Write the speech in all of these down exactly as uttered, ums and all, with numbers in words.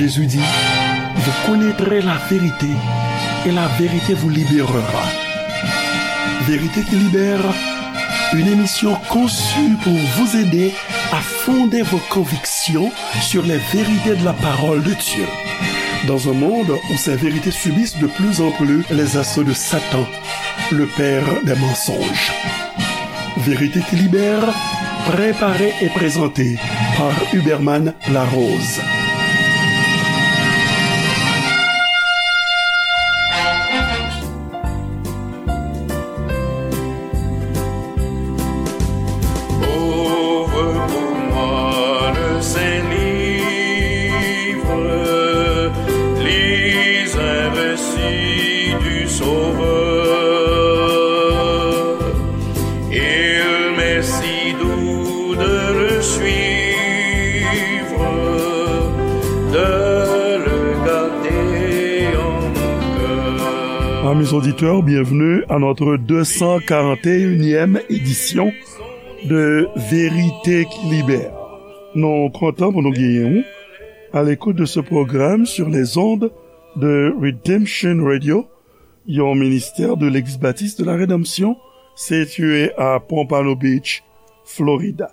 Jésus dit, vous connaîtrez la vérité et la vérité vous libérera. Vérité qui libère, une émission conçue pour vous aider à fonder vos convictions sur les vérités de la parole de Dieu. Dans un monde où ces vérités subissent de plus en plus les assauts de Satan, le père des mensonges. Vérité qui libère, préparée et présentée par Huberman Larose. Ouvre pour moi le Saint-Livre, lis un récit du Sauveur. Il m'est si doux de le suivre, de le garder en mon cœur. Amis auditeurs, bienvenue à notre deux cent quarante et unième édition de Vérité qui Libère. Nou kontan pou nou genyen w à l'écoute de ce programme sur les ondes de Redemption Radio, yon ministère de l'ex-baptiste de la rédemption, situé à Pompano Beach, Florida.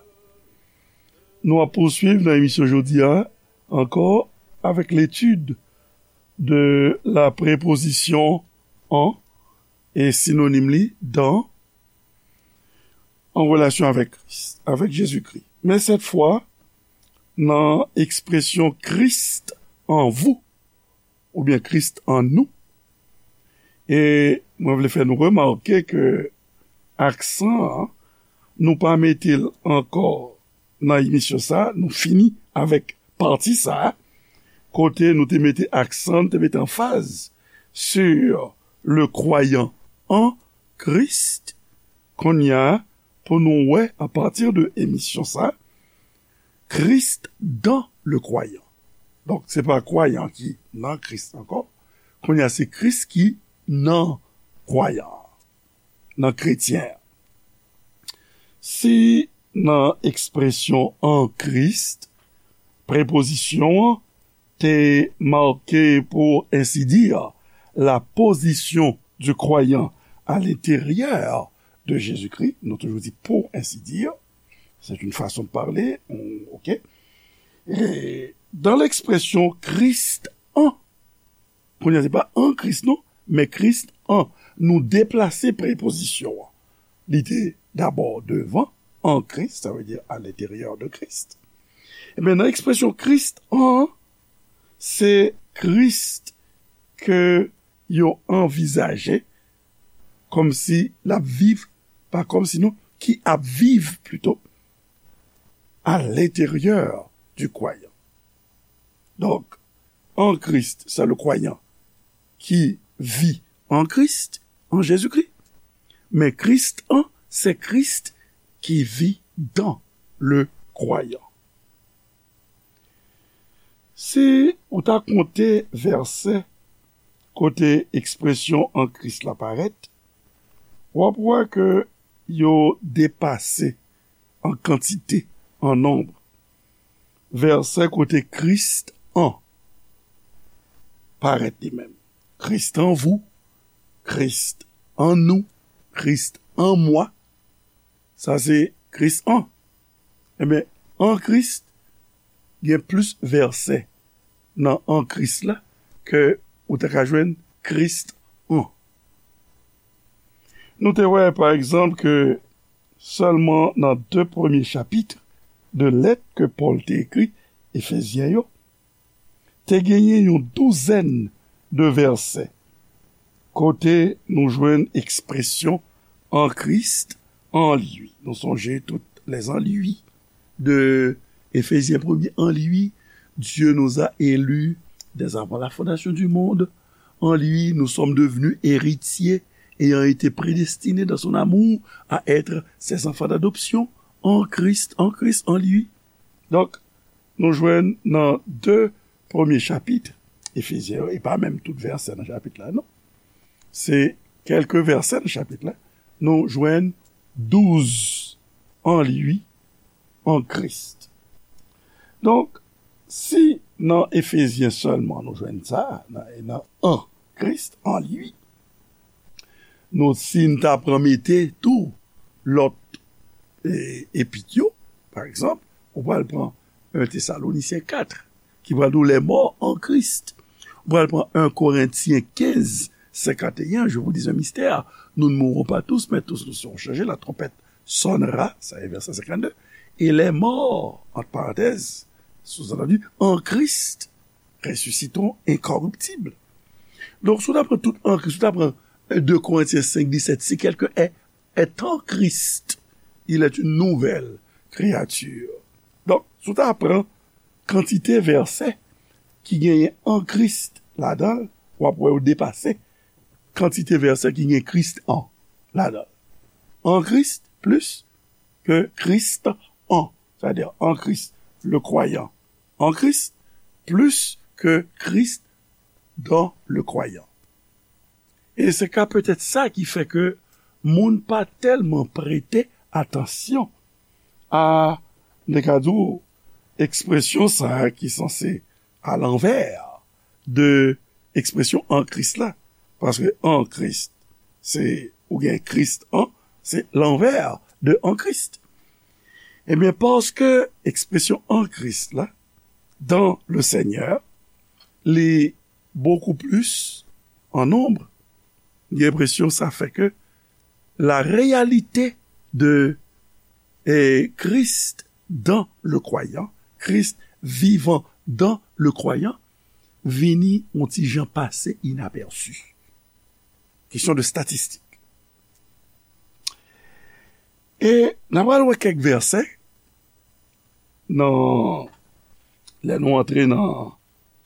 Nou ap pouswiv nan emisyon jodi a ankò avec l'étude de la préposition en et synonyme li dans en relation avec Christ, avec Jésus-Christ. Men cette fois, nan ekspresyon Christ en vous, oubyen Christ en nous. E mwen vle fè nou remake ke aksan an, nou pa mete l ankò nan emisyon sa, nou fini avèk pati sa, kote nou te mete aksan, te mete anfaz sur le croyant en Christ. Kounye a, pou nou wè, à partir de emisyon sa, Christ dans le croyant. Donk, se pa kwayan ki nan Kris ankò. Kounye a, se Kris ki nan kwayan an, nan kretyen an. Si nan ekspresyon en Christ, prepozisyon an te make, pour ainsi dire, la position du croyant à l'intérieur de Jésus-Christ, nou toujou di pour ainsi dire, c'est une façon de parler, on- ok. Et dans l'expression Christ en, kounye a se pa an Kris non, men Christ en, nou deplase prepozisyon an. Li te dabò devan, en Christ, sa vle di à l'intérieur de Christ. Ebyen, nan ekspresyon Christ en, se Kris ke yo anvizaje kòmsi l ap viv, pa kòmsi non, ki ap viv plito, à l'intérieur du croyant. Donk, en Christ, c'est le croyant qui vit en Christ, en Jésus-Christ. Men Christ en, c'est Christ qui vit dans le croyant. Si ou ta konte vèsè kote ekspresyon en Christ la parèt, w ap wè ke yo depase an kantite, an nonb, vèsè kote Christ en parèt li menm. Christ en vous, Christ en nous, Christ en moi. Sa se Christ en. Ebyen, en Christ, gen plis vèsè nan en Christ la ke ou ta ka jwenn Christ en. Nou te wè, pa egzanp, ke sèlman nan de premye chapit de lèt ke Pòl te ekri Efezyen yo, te genyen yon douzèn de vèsè kote nou jwenn ekspresyon en Christ, en lui. Nou sonje tout les en lui de Éphésiens premier, en lui, Dieu nous a élus dès avant la fondation du monde. En lui, nous sommes devenus héritiers, ayant été prédestinés dans son amour à être ses enfants d'adoption, en Christ, en Christ, en lui. Donk, nou jwenn nan de premye chapit Efezyen yo, e pa menm tout vèsè nan chapit la, non. Se kèlke vèsè nan chapit la, nou jwenn douz en lui, en Christ. Donk, si Nan Efezyen sèlman nou jwenn sa, nan, nan an Kris, an li. Nou, si n ta pran mete tou lòt e, epit yo, pa egzanp, ou pral pran en Tesalonisyen kat, ki pral di w les morts en Christ. Ou pral pran en Korentyen kenz, senkanteyen, je vous dis un mystère, nous ne mourrons pas tous, mais tous nous serons changés, la trompette sonnera, sa e vèsè senkannde, et les morts, entre parenthèses, sous-entendu, en Christ, ressusciteront incorruptibles. Donk, si w ta pran tout an Kris, si w ta pran de Korentyen senk disèt, si quelqu'un est, est en Christ, il est une nouvelle créature. Donk, si w ta pran kantite vèsè ki genyen an Kris ladan l, w ap wè yo depase kantite vèsè ki gen Kris an ladan l. An Kris plis ke Kris an, c'est-à-dire en Christ, le croyant en Christ, plus que Christ dans le croyant. E se ka petèt sa ki fè ke moun pa tèlman prete atansyon a, n te ka di w, ekspresyon sa a ki sanse alanvè de ekspresyon an Kris la. Paske an Kris, se, ou gen Kris an, se lanvè de an Kris. Ebyen, paske ekspresyon an Kris la, dans le Seigneur, li bokou plis an nonb, gen enpresyon sa fè ke la réalité de eh, Christ dans le croyant, Christ vivant dans le croyant, vini yon ti jan pase inapèsi. Kesyon de statistik. E n ap pral wè kèk vèsè nan, lè nou antre nan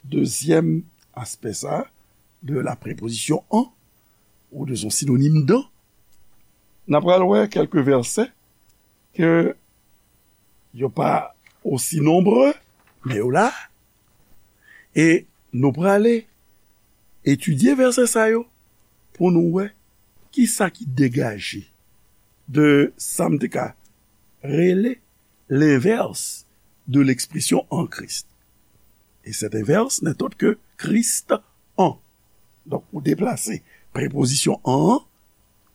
dezyèm aspè sa de la prepozisyon an, ou de son sinonim dan, n ap pral wè kèk vèsè ke yo pa osi nonbre, men yo la. E nou prale etidye vèsè sa yo pou nou wè ki sa ki degaje de sa m te ka rele lenvès de lekspresyon an Kris. E cet inverse n'est autre que Christ en. Donk, ou deplase prepozisyon an an,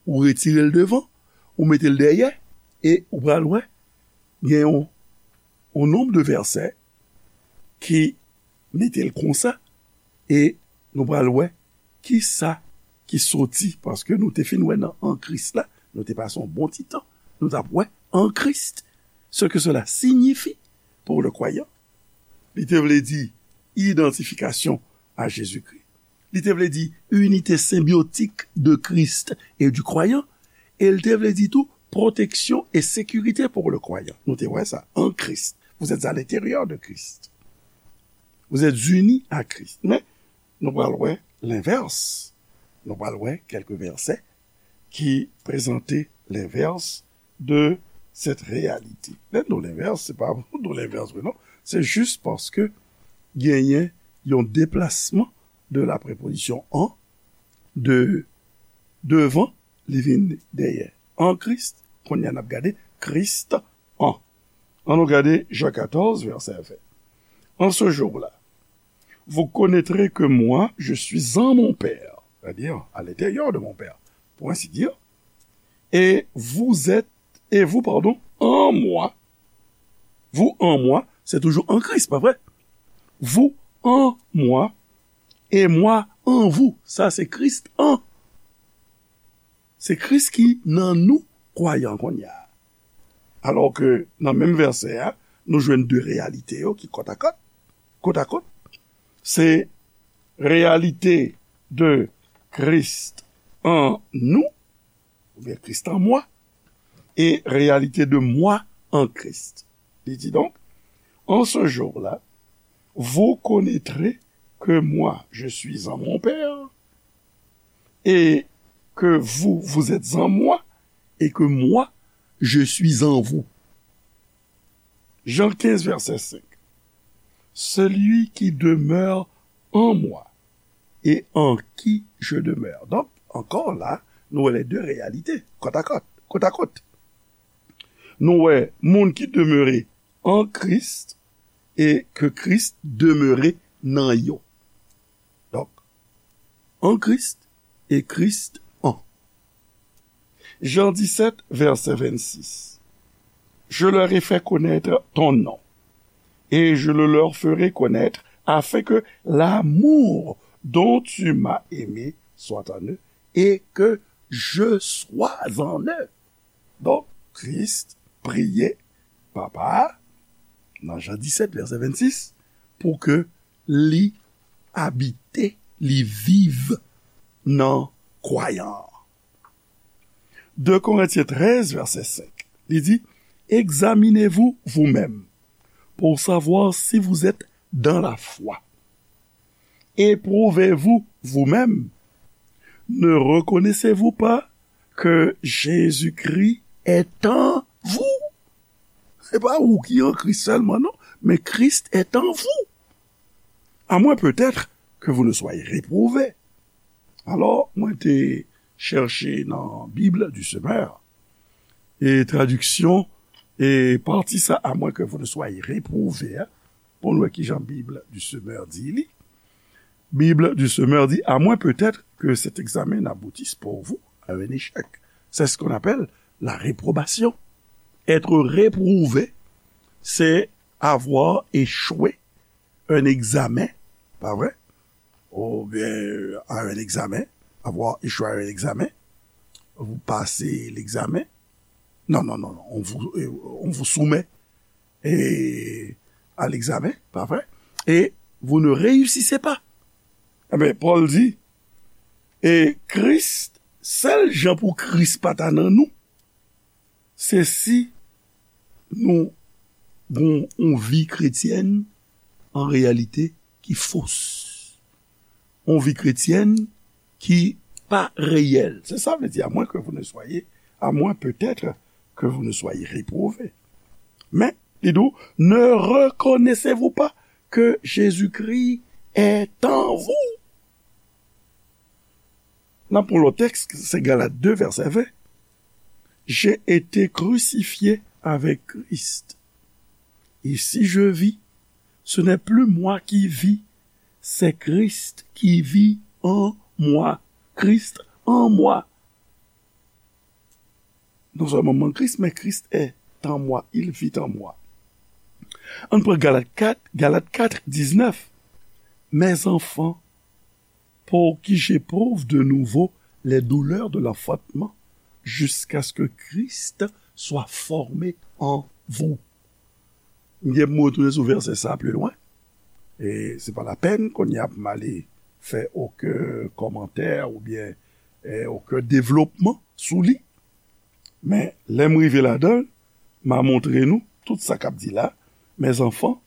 ou retire l devan, ou mete l dèyè, e ou pral wè, gen yon, yon nonb de vèsè ki mete l konsa, e nou pral wè ki sa ki soti, paske nou te fin wè nan an Kris la, nou te pase yon bon ti tan, nou t ap wè an Kris, ce que cela signifie pour le croyant. Li te vle di idantifikasyon a Jezikri. Li te vle di unité symbiotique de Christ et du croyant. E li te vle di tou protection et sécurité pour le croyant. Nou te wè sa, en Christ. Vous êtes à l'intérieur de Christ. Vous êtes unis à Christ. Men, nou pral wè lenvès. Nou pral wè kèk vèsè ki prezante lenvès de cette réalité. Lè nou lenvès, se pa pou nou lenvès vre, non. Se jis paske genyen yon deplasman de la prepozisyon an, de devan, li vin dèyè. An Kris, kounye a n ap gade Kris an. An nou gade Jan katòz, vèsè ven. En ce jour-là, vous connaîtrez que moi, je suis en mon Père, c'est-à-dire à l'intérieur de mon Père, pour ainsi dire, et vous êtes, et vous, pardon, en moi, vous en moi, c'est toujours en Christ, pas vrai? Vous en moi, et moi en vous, ça c'est Christ en. Se Kris ki nan nou, kwayan kounye a. Alò ke nan menm vèsè a, nou jwenn de reyalite yo ki kòtakòt, kotakòt. Se reyalite de Christ en nous, oubyen Christ en moi, et réalité de moi en Christ. Li di donc, en ce jour-là, vous connaîtrez que moi, je suis en mon Père, et que vous, vous êtes en moi, et que moi, je suis en vous. Jean quinze, verset cinq. Celui qui demeure en moi et en qui je demeure. Donk, ankò la, nou wè les deux réalités, kòtakòt, kotakòt. Nou wè moun ki demere an Kris, e ke Kris demere nan yo. Donk, an Kris e Kris an. Jan disèt, vèsè vennsis. Je leur ai fait connaître ton nom, et je le leur ferai connaître, afin que l'amour dont tu m'as aimé soit en eux, et que je sois en eux. Donk, Kris priye Papa a, nan Jan disèt, vèsè vennsis, pou ke li abite, li viv nan kwayan an. De Korentyen trèz, vèsè senk, li di, examinez-vous vous-même pour savoir si vous êtes dans la foi. Éprouvez-vous vous-même. Ne reconnaissez-vous pas que Jésus-Christ est en vous? Se pa ou ki an Kris sèlman, non, men Christ est en vous. À moins peut-être que vous ne soyez réprouvés. Alò, mwen te chèche nan Bible du Semeur, e tradiksyon, e pati sa, à moins que vous ne soyez réprouvés, hein, pou nou wè ki jan Bible du Semeur di li. Bible du Semeur dit, à moins peut-être que cet examen n'aboutisse pour vous à un échec. C'est ce qu'on appelle la réprobation. Être réprouvé, c'est avoir échoué un examen, pas vrai? Ou bien à un examen, avoir échoué à un examen, vous passez l'examen. Non, non, non, non, on vous, euh, on vous soumet et à l'examen, pas vrai? Et vous ne réussissez pas. Ebyen, Pòl di, e Kris, sèl jan pou Kris pa ta nan nou, se si nou gon yon vi kretyèn an reyalite ki fos. Yon vi kretyèn ki pa reyèl. Se sa vle di, à moins que vous ne soyez, à moins peut-être que vous ne soyez réprouvés. Men, li di w, ne reconnaissez-vous pas que Jésus-Christ est en vous? N ap pran lòt tèks, se Galat de, vèsè ven. J'ai été crucifié avec Christ. Et si je vis, ce n'est plus moi qui vis, c'est Christ qui vit en moi. Christ en moi. Non seulement mon Christ, mais Christ est en moi, il vit en moi. Ann pran Galat kat, Galat kat, diznèf. Mes enfants, pour qui j'éprouve de nouveau les douleurs de l'enfantement, jusqu'à ce que Christ soit formé en vous. M gen pou m retounen sou vèsè sa pli lwen. E se pa lapèn kounye a pou m ale fè okenn kòmantè oubyen, eh, okenn devlopman sou li. Men lè m rive ladan l, m a montre nou tout sa k ap di la. Mes enfants,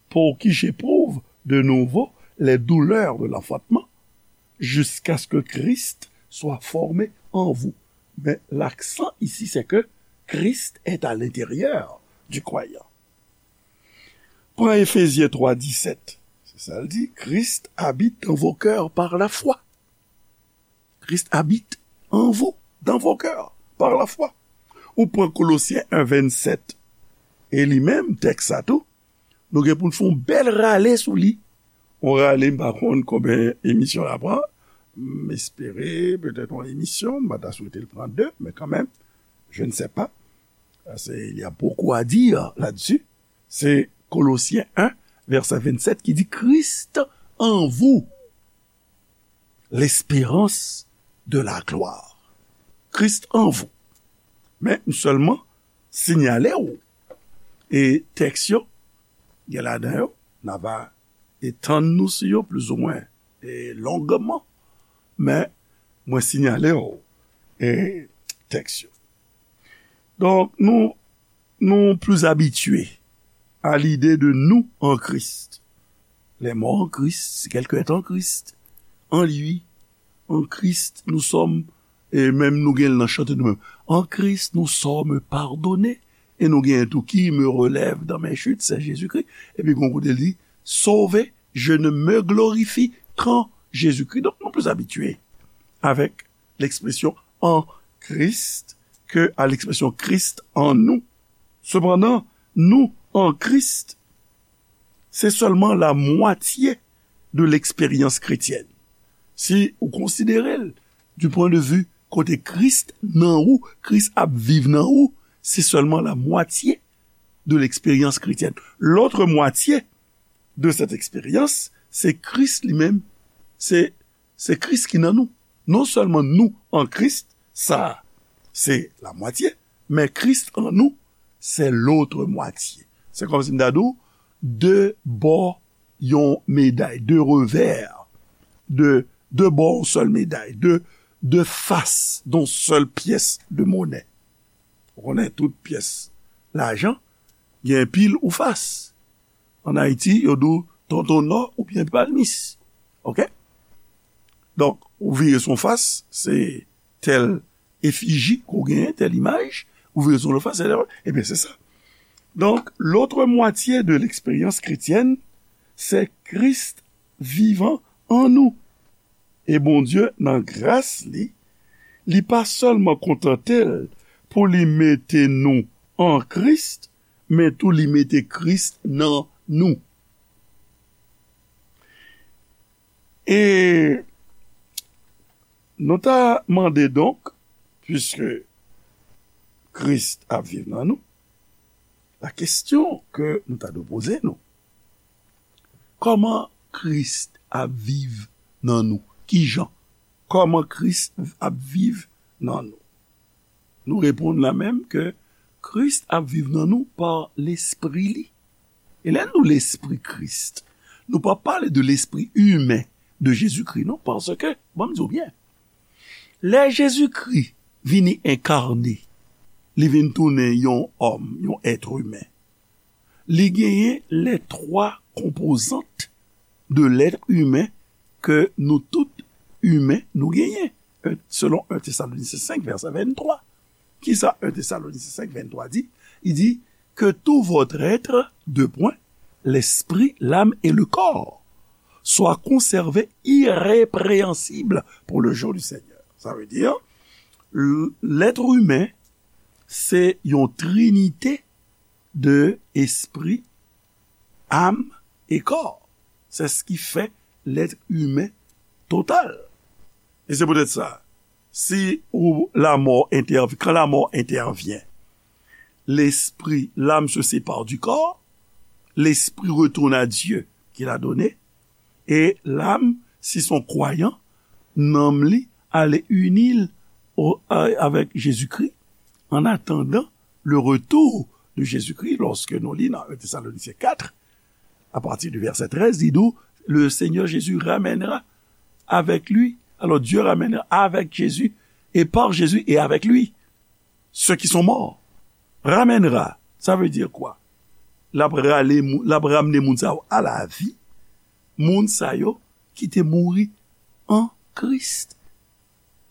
pour qui j'éprouve de nouveau les douleurs de l'enfantement, jusqu'à ce que Christ soit formé en vous. Mais l'accent ici, c'est que Christ est à l'intérieur du croyant. Pran Efezyen twa disèt. Se sa l di, Christ habite dans vos cœurs par la foi. Christ habite en vous, dans vos cœurs, par la foi. Ou pran Kolosyen en vennsèt. E li menm, tèks sa tou, nou gen pou n fè yon bèl rale sou li. Yon rale, m pa konn konbyen emisyon l ap pran. M espere, petèt yon emisyon, m pa ta swete l pran de, men kanmenm, je ne sais pas. Parce qu'il y a beaucoup à dire là-dessus. Se Kolosyen en, vèsè vennsèt ki di, Christ en vous, l'espérance de la gloire. Christ en vous. Men m sèlman sinyale w, e tèks yo, gen ladan yo, n a va etann nou sou yo plizoumwen, e longman, men mwen sinyale w, e tèks yo. Donk, nou, nous plus habitués à l'idée de nous en Christ. Les morts en Christ, c'est quelqu'un est en Christ, en lui, en Christ, nous sommes, e menm nou gen l nan chante nou menm. En Christ, nous sommes pardonnés. E nou gen tou qui me relève dans mes chutes, c'est Jésus-Christ. Epi gon kote l di, sauvé, je ne me glorifie qu'en Jésus-Christ. Donk, nou plis abitye avèk l'expression en Christ que à l'expression Christ en nous. Cependant, nous en Christ, Se sèlman la mwatye de leksperyans kretyèn. Si ou konsidere l du point de vue kote Kris nan ou, Kris ap viv nan ou, se sèlman la mwatye de leksperyans kretyèn. Lòt mwatye de sèt eksperyans, se Kris li menm, se, se Kris ki nan nou. Non sèlman nou an Kris, sa se la mwatye, men Kris an nou, se lòt mwatye. Se kòmsi m ta di w, de bò yon meday, de revè, de, de bò yon sèl meday, de, de fas yon sèl pyès de monè. Ou konnen tout pyès lajan gen pil ou fas. Ann Ayiti, yo di w tonton nò oubyen palmis. Oke? Donk, ou vire sou yon fas, se tèl efiji ke w genyen, tèl imaj, ou vire sou yon lòt fas, se tèl, ebyen, se sa. Donk, lòt mwatye de leksperyans kretyèn, se Kris vivan an nou. E Bondye, nan gras li, li pa sèlman kontante l pou li mete nou an Kris, men tou li mete Kris nan nou. E nou ta mande donk, piske Kris ap viv nan nou, la kesyon ke nou ta dwe poze nou, kòman Kris ap viv nan nou? Kijan? Kòman Kris ap viv nan nou? Nou reponn la menm ke Kris ap viv nan nou pa Lespri li. E lè nou Lespri Kris, nou pa pale de lespri imen de Jezikri, non, paske, ban m di w byen, lè Jezikri vini enkane, li vin tounen yon òm, yon èt imen, li genyen lè twa konpozant de lèt imen ke nou tout imen nou genyen, selon en Tesalonisyen senk, vèsè venntwa. Kisa en Tesalonisyen senk, venntwa di? Li di, que tout votre être, deux points, l'esprit, l'âme et le corps, soit conservé irrépréhensible pour le jour du Seigneur. Sa vle di, lèt imen, se yon trinite de espri, am e kò. C'est ce qui fait l'être humain total. E se poutèt sa, si ou, la mort intervient, quand la mort intervient, l'esprit, l'âme se sépare du corps, l'esprit retourne à Dieu qui l'a donné, et l'âme, si son croyant, nanm li ale ini l o- a- avec Jésus-Christ, en attendant le retour de Jésus-Christ, lorsque nou li nan en Thessaloniciens quatre, à partir du verset treize, li di w, le Seigneur Jésus ramènera avec lui. Alors Dieu ramènera avec Jésus et par Jésus et avec lui ceux qui sont morts. Ramènera, ça veut dire quoi? L ap rale mou- l ap ramne moun sa yo a lavi, moun sa yo ki te mouri an Kris,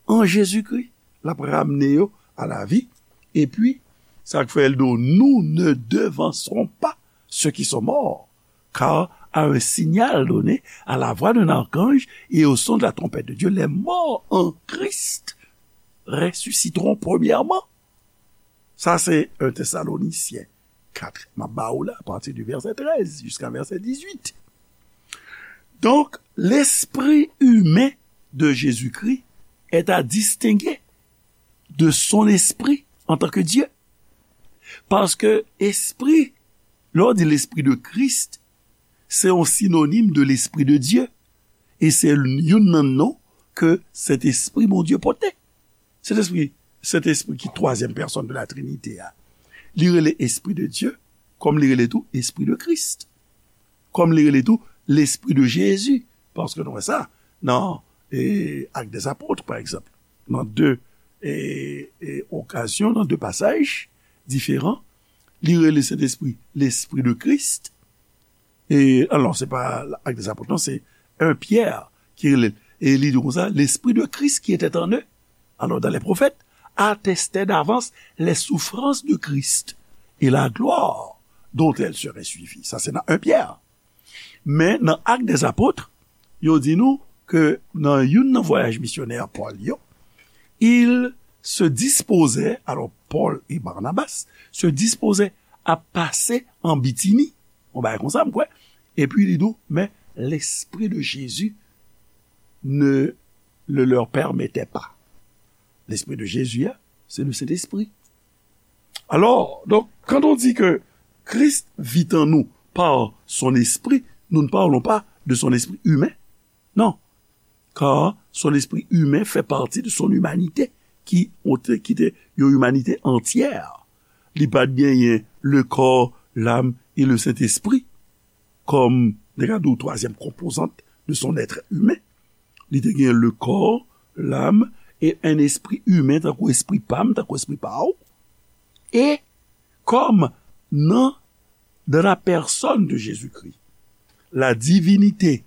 an Jezikri. L ap ramne yo a lavi. Epi, sa k fè l di w, nous ne devancerons pas ceux qui sont morts, car à un signal donné, à la voix d'un archange et au son de la trompette de Dieu, les morts en Christ ressusciteront premièrement. Sa se en Tesalonisyen kat. M ap ba ou la, à partir du verset treize jusqu'à verset dix-huit. Donc, l'esprit humain de Jésus-Christ est à distinguer de son esprit en tant que Dieu. Paske espri, lè w di l'esprit de Christ, se yon sinonim de l'esprit de Dieu. E se youn nan non ke Sentespri Bondye pote. Sentespri, Sentespri ki twazyèm pèsòn de la Trinite a. Li rele Espri de Dye, kòm li rele tou Espri de Kris. Kòm li rele tou Lespri de Jezi. Paske nou wè sa nan, e, Actes des Apôtres, pa egzanp. Nan de, e, e, okazyon, nan de pasaj diferan, li rele Sentespri Lespri de Kris. E, alò, se pa Actes des Apôtres, non, se en Pyè ki rele l. E li di konsa, l'Esprit de Christ qui était en eux, alors dans les prophètes, attestait d'avance les souffrances de Christ et la gloire dont elles seraient suivies. Sa se nan en Pyè. Men nan Actes des Apôtres, yo di nou ke nan youn nan vwayaj misyonè Pòl yo, il se disposait, alors Paul et Barnabas se disposaient à passer en Bithynie, yon bagay konsa, m kwè, Et puis, il dit, mais l'Esprit de Jésus ne le leur permettait pas. L'Esprit de Jésus, hein, c'est le Saint-Esprit. Alors, donc, quand on dit que Christ vit en nous par son Esprit, nous ne parlons pas de son esprit humain. Non. Car son esprit humain fait partie de son humanité, qui, ont- qui était une humanité entière. Li pa t genyen le corps, l'âme et le Saint-Esprit comme, regardez, troisième composante de son être humain. Li te gen le corps, l'âme et un esprit humain, tankou espri pa m, tankou espri pa w. E kòm nan, dans la personne de Jésus-Christ, la divinité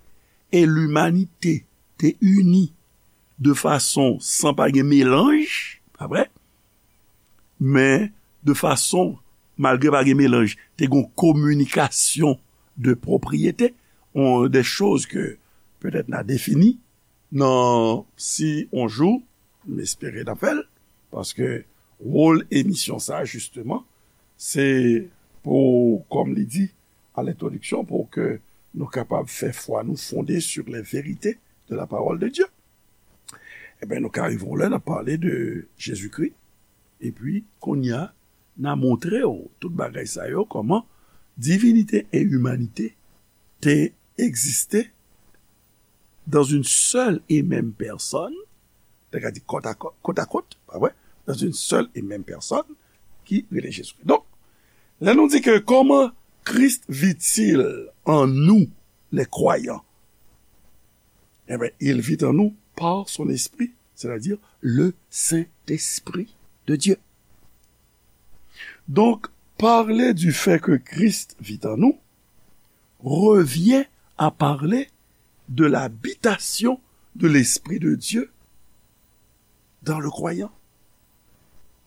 et l'humanité te ini de fason san pa gen melanj, pa vre? Men de fason, malgre pa gen melanj, te gen kominikasyon de pwopriyete, on, de choz ke petèt n a defini nan si on jou, m espere n a fè l, paske wòl emisyon sa, jisteman, se pou, kòm li di a lentwodiksyon, pou ke nou kapab fè fwa nou fonde sur les vérités de la parole de Dieu. Ebyen, nou ka rive yon lè, n ap pale de Jezikri, epi kounye a, n a montre w tout bagay sa yo, kòman divinite e imanite te egziste dans une seule et même personne, te ka di côte à côte, côte à côte, pa vre? Dans une seule et même personne, ki rele Jezikri. Donk, lè nou di ke comment Christ vit-il en nous, les croyants? Eh bien, il vit en nous par son esprit, c'est-à-dire le Saint-Esprit de Dieu. Donc, parler du fait que Christ vit en nous revient à parler de l'habitation de l'Esprit de Dieu dans le croyant.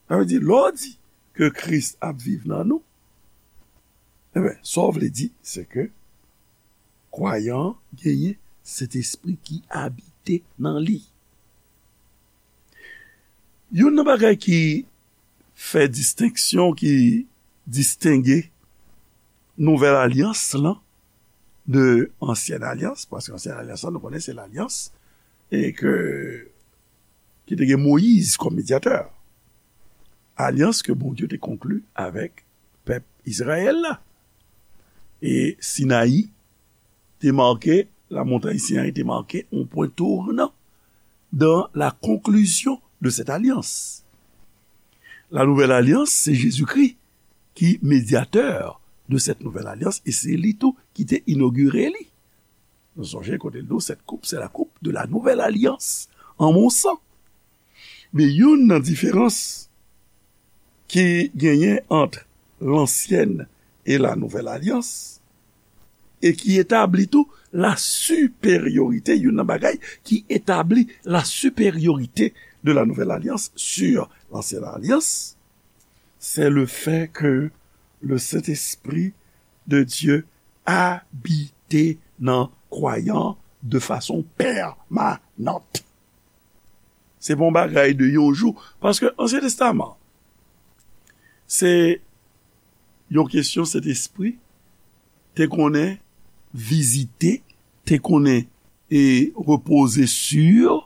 Sa vle di, lè w di ke Kris ap viv nan nou, ebyen, sa w vle di, se ke kwayan an genyen Sentespri ki abite nan li. Youn nan bagay ki fè distenksyon, ki distenge nouvèl alyans lan de ansyèn alyans, paske ansyèn alyans lan, nou konnen se lalyans e ke, ki te gen Moyiz kòm medyatè. Alyans ke Bondye te konkli avèk pèp Izrayèl la. E Sinayi te make, la montagne Sinaï te make un point tournant dans la conclusion de cette alliance. La nouvelle alliance, c'est Jésus-Christ qui médiateur de cette nouvelle alliance, e se li tou ki te inogire li. Nou sonje kote l di w, cette coupe, c'est la coupe de la nouvelle alliance en mon sang. Men youn nan diferans ki genyen ant lansyèn e la nouvèl alyans, e ki etabli tou la siperyorite, youn nan bagay ki etabli la siperyorite de la nouvèl alyans sur l'ancienne alliance, c'est le fait que le Saint-Esprit de Dieu abite nan kwayan de fason pèmanant. Se pa yon bagay de yon jou, paske Ansyen Testaman, se yon kesyon Sentespri te konnen vizite, te konnen e repoze sur,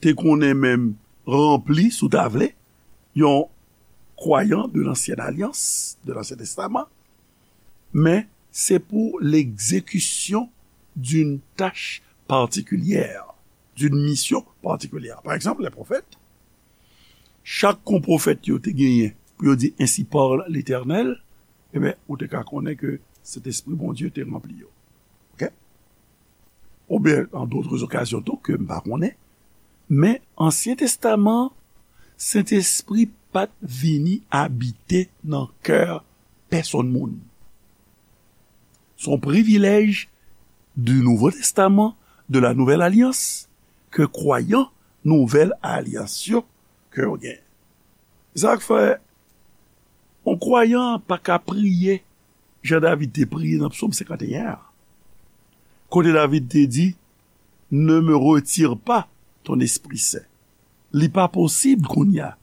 te konnen menm ranpli, si w ta vle, yon kwayan de l'Ancienne Alliance, de l'Ancien Testament, men se pou l'exécution d'une tâche particulière, d'une mission particulière. Pa egzanp, les prophètes, chak kon pwofèt yo te genyen pou yo di ainsi parle l'Éternel, ebyen, ou te ka konnen ke Sentespri Bondye te ranpli yo. Ok? Oubyen, an dotre okazyon tou, ke m pa konnen, men Ansyen Testaman, Sentespri pa t vini abite nan kè pèsonn moun. Se yon privilèj du Nouveau Testament, de la Nouvelle Alliance, ke kwayan Nouvèl Alyans yo, ke yo gen. Sa k fè, yon kwayan pa ka priye jan David te priye nan Psaume cinquante et un an. Kote David te di, ne me retire pas ton Esprit Saint. Li pa posib kounye a,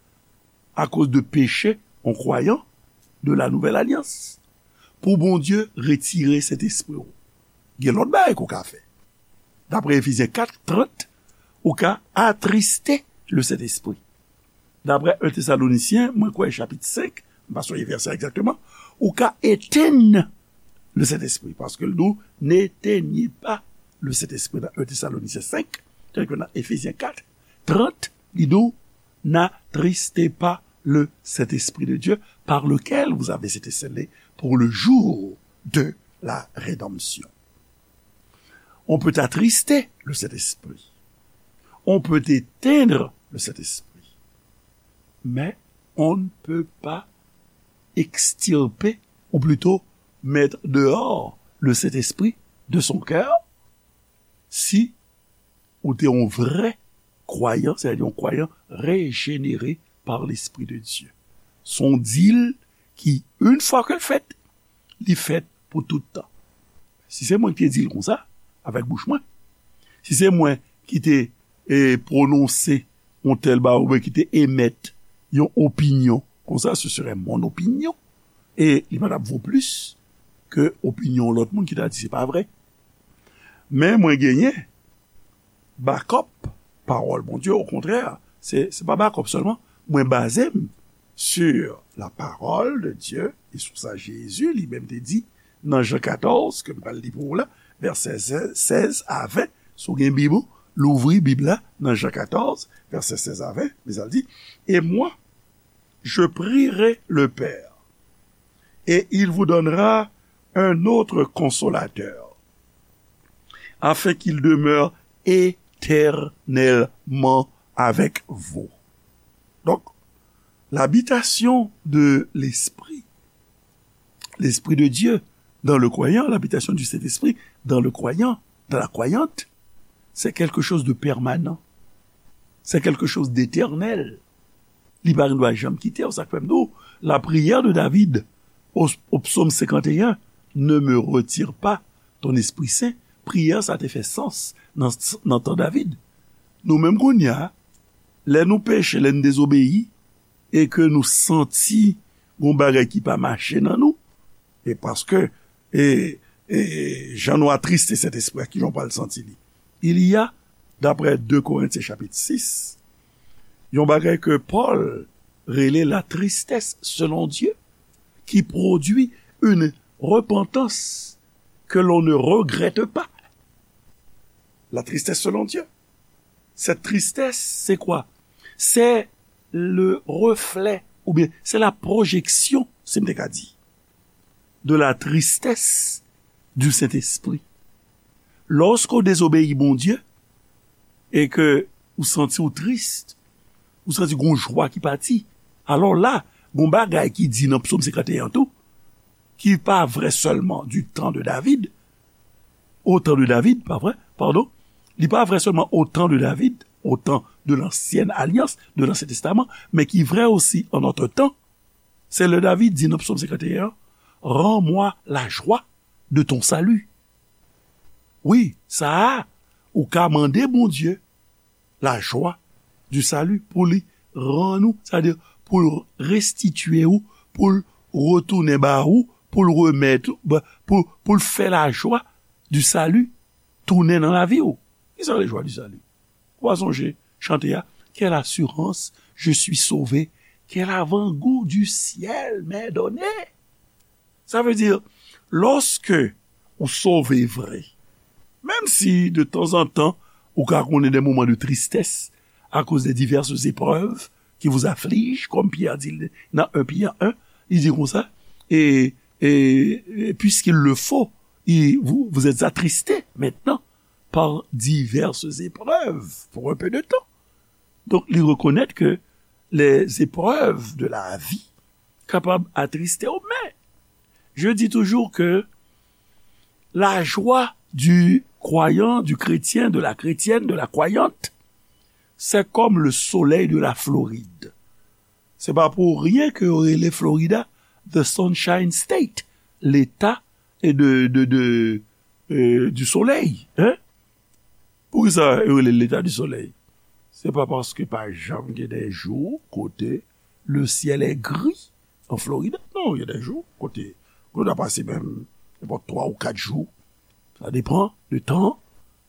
akoz de peche, yon kwayan de la Nouvelle Alliance, pou Bondye retire Sentespri w. Gen lòt bagay ke w ka fè. Daprè Efezyen kat trant, ou ka atriste Lesentespri. Daprè en Tesalonisyen, mwen kwè chapit senk, m pa sonje vèsè a egzakteman, ou ka etenn Lesentespri, paske l di w, n'éteignez pas le Saint-Esprit nan en Tesalonisyen senk, tandiske nan Efezyen kat trant, li di w, n'attristez pas le Saint-Esprit de Dieu, par lequel vous avez été scellés pour le jour de la rédemption. On peut attrister le Saint-Esprit. On peut éteindre le Saint-Esprit. Mais on ne peut pas extirper, ou plutôt mettre dehors le Saint-Esprit de son cœur si ou te yon vrè kwayan, sètadi yon kwayan rejenere pa Lespri de Dye. Se yon dil ki, yon fwa ke l fèt, li fèt pou tout tan. Si se mwen ki te di l konsa, avèk bouch mwen, si se mwen ki te e, pwononse yon tèl bagay oubyen ki te emèt yon opinyon konsa, ce serait mon opinion, e li pa t ap vo plis ke opinyon lòt moun ki ta di se pa vre. Men mwen genyen bakòp pawòl Bondye, okontrè, se, se pa bakòp sèlman, mwen baze m sur la parole de Dieu, e sou sa Jezi li menm te di nan Jan katòz, ke m pral li pou ou la, vèsè sèz a ven. Si w gen Bib ou, louvri Bib la nan Jan katòz, vèsè sèz a ven, men sa l di, et moi, je prierai le Père, et il vous donnera un autre consolateur, afin qu'il demeure éternellement avec vous. Donc, l'habitation de l'Esprit, l'Esprit de Dieu dans le croyant, l'habitation du Saint-Esprit dans le croyant, dans la croyante, c'est quelque chose de permanent. C'est quelque chose d'éternel. Li pa gen dwa janm kite w. Sa k fè m di w, la prière de David au, au psaume cinquante et un, ne me retire pas ton Esprit Saint. Priyè sa te fè sans nan, nan tan David. Nou menm kounye a, lè nou peche, lè n dezobeyi, e ke nou santi gon bagay ki pa mache nan nou, e paske, e, e, jan nou atriste Sentespri a, kijan w pral santi li? Il y a, d'après deux Corinthiens chapitre six, yon bagay ke Pòl rele la tristesse selon Dieu, qui produit une repentance que l'on ne regrette pas. La tristesse selon Dieu. Cette tristesse, c'est quoi? C'est le reflet, oubyen c'est la projection, si m te ka di, de la tristesse du Saint-Esprit. Lòske w dezobeyi Bondye e ke ou santi w tris, ou santi gon jwa ki pati, alò la, gon bagay ki di nan Psaume cinquante et un tou, ki pa vre sèlman du temps de David, au temps de David, pa vre, pardon, li pa vre sèlman au temps de David, au temps de l'ancienne alliance, de l'Ancien Testament, men ki vre osi en notre temps. Se lè David di nan Psaume cinquante et un, rends-moi la joie de ton salut. Wi, sa a, ou ka mande Bondye la joie du salut pou li rann ou, sètadi pou l restitye ou, pou l retounen ba ou, pou l remèt, pou, pou l fè la joie du salut tounen nan lavi w. Kisa le joie du salut? Ou pa sonje chante a? Quelle assurance, je suis sauvé, quel avant-goût du ciel m'est donné. Sa vle di, lòske ou sove vre, menm si de tanzantan ou ka konnen de moman de tristès akoz de diverses épreuves qui vous affligent, kòm Pyè di l nan en Pyè en, li di konsa, e, e, e puisqu'il le faut, il, vous, vous êtes attristés maintenant par diverses épreuves pour un peu de temps. Donk, li rekonèt ke les épreuves de la vie kapab atriste w, men je dis toujours que la joie du croyant, du chrétien, de la chrétienne, de la croyante, c'est comme le soleil de la Floride. Se pa pou ryen ke yo rele Florida the Sunshine State, leta e de, de, de, euh, du soleil, hein? Poukisa yo rele leta du soleil? Se pa paske pa janm gen de jou kote le ciel est gris en Florida. Non, il y a des jours kote, kote w ta pase menm nenpòt twa ou kat jou Sa depann de tan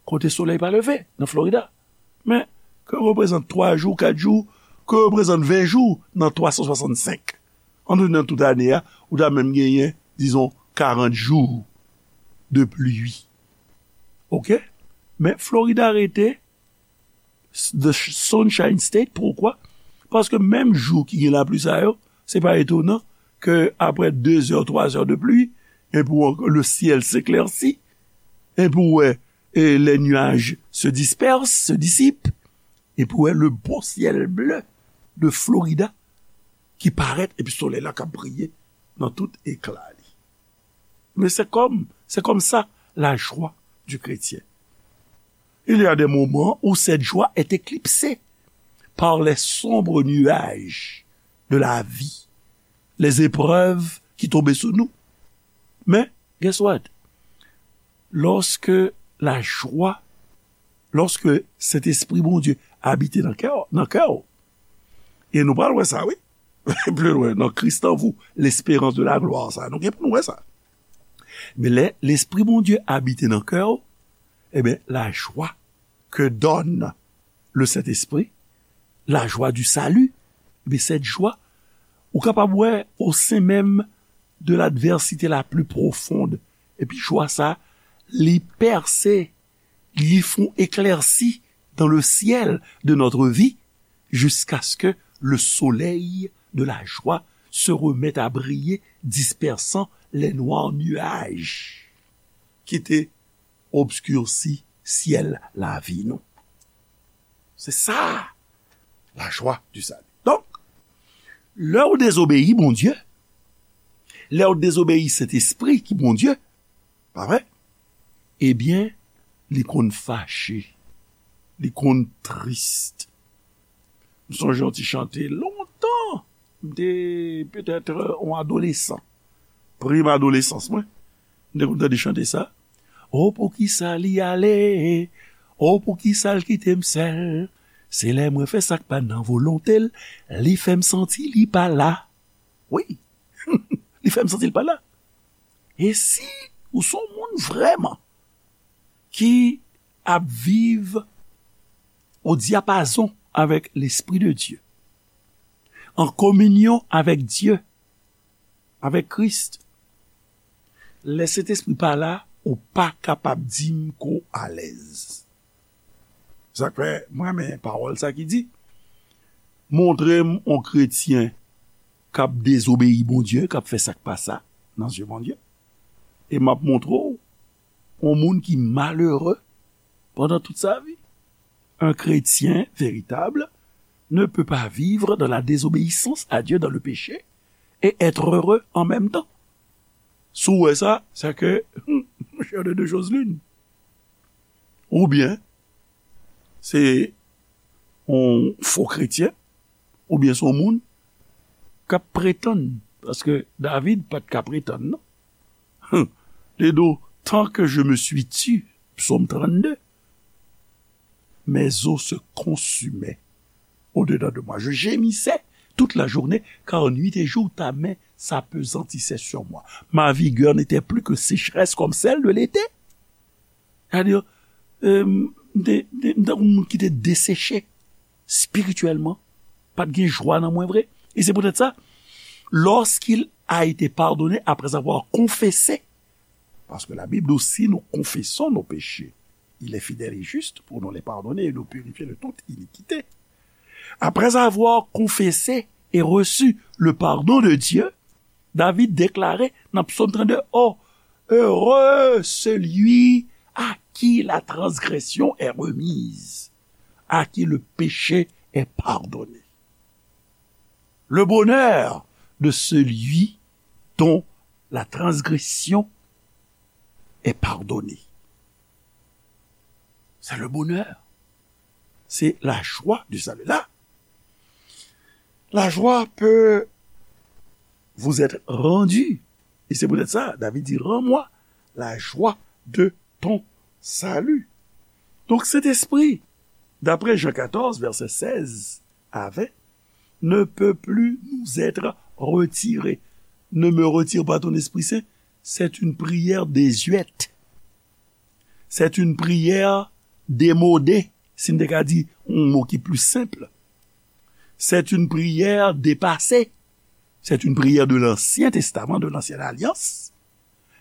kote solèy pa leve nan Florida. Men, ke reprezant twa jou, kat jou, ke reprezant ven jou nan twa san swasannsenk. An nou nan tout ane a, ou ta menm genyen, dizon, karant jou de pli. Oke? Men Florida rete the Sunshine State. Poukwa? Paske menm jou ki gen lapli sa yo, se pa etonan ke apre de zè, twa zè de pli, e pou le syèl s'éclaircit, e pou wè, e les nuages se dispersent, se dissipent, e pou wè le beau ciel bleu de Florida ki parèt, epi solèy la k ap briye nan tout ekla li. Men se kòm, se kòm sa la joie du chrétien. Il y a des moments où cette joie est éclipsée par les sombres nuages de la vie, les épreuves qui tombent sur nous. Mais, guess what? Lorsque la joie, lorsque Saint-Esprit Bondye abite nan kè, nan kè w, e nou pral wè sa, wi. Pli lwen, dans Christ en vous, l'espérance de la gloire, sa, nou gen pou nou wè sa. Men lè Lespri Bondye abite nan kè w, ebyen, la joie que donne le Saint-Esprit, la joie du salut, ebyen, cette joie, ou kapab wè au sein même de l'adversité la plus profonde. Epi jwa sa, li pèse, li fè yon eklèsi dans le ciel de notre vie, jusqu'à ce que le soleil de la joie se remette à briller, dispersant les noirs nuages qui étaient obscurci syèl lavi nou. Se sa, la joie du salut. Donk, lè w dezobeyi Bondye, lè w dezobeyi Sentespri ki Bondye, pa vre? Ebyen, li konn fache, li konn tris. M sonje yon ti chante lontan, m te petèt, euh, yon adolesan, prim adolesans mwen, m te konn tande chante sa. O poukisa li ale? O poukisa l kite m sèl? Se lè mwen fè sa k pa nan volonte l, li fè m santi li pa la. Wi, li fè m santi l pa la. E si ou se yon moun vrèman ki ap viv o dyapazon avèk Lespri de Dye, an kominyon avèk Dye, avèk Kris, lè Sentespri pa la, ou pa kapab di m ke w alèz. Sa k fè, mwen renmen pawòl sa ki di, montre m yon kretyen k ap dezobeyi Bondye, k ap fè sa k pa sa nan zye Bondye, e m ap montre w yon moun ki malere pandan tout sa vi. Un chrétien véritable ne peut pas vivre dans la désobéissance à Dieu, dans le péché, et être heureux en même temps. Si w wè sa, se ke, monchè, de deux choses l'une. Oubyen, se yon fo kretyen, oubyen se yon moun k ap pretann, paske David pa t ka pretann, non. Hum. Li di w, tant que je me suis tu, Psaume trente-deux, mes os se consumaient au-dedans de moi. Je gémissais toute la journée, car nuit et jour ta main s'appesantissait sur moi. Ma vigueur n'était plus que sécheresse comme celle de l'été. Sa di, euh, m te, m te, m te yon moun ki te deseche espirityèlman, pa t gen jwa nan mwen vre. E se poutèt sa, lorsqu'il a été pardonné après avoir confessé, parce que la Bible dit, si nous confessons nos péchés, il est fidèle et juste pour nous les pardonner et nous purifier de toute iniquité. Après avoir confessé et reçu le pardon de Dieu, David déclarait dans Psaume trente-deux, oh, heureux celui à qui la transgression est remise, à qui le péché est pardonné. Le bonheur de celui dont la transgression est pardonnée. C'est le bonheur. C'est la joie du salut. Là, la joie peut vous être rendue. Et c'est peut-être ça, David dit, rends-moi la joie de ton salut. Donc, cet esprit, d'après Jean quatorze, verset seize à vingt, ne peut plus nous être retiré. Ne me retire pas ton Esprit Saint, c'est une prière désuète. C'est une prière démodée, si n te ka di yon mo ki pli senp. C'est une prière dépassée. C'est une prière de l'Ancien Testament, de l'Ancienne Alliance.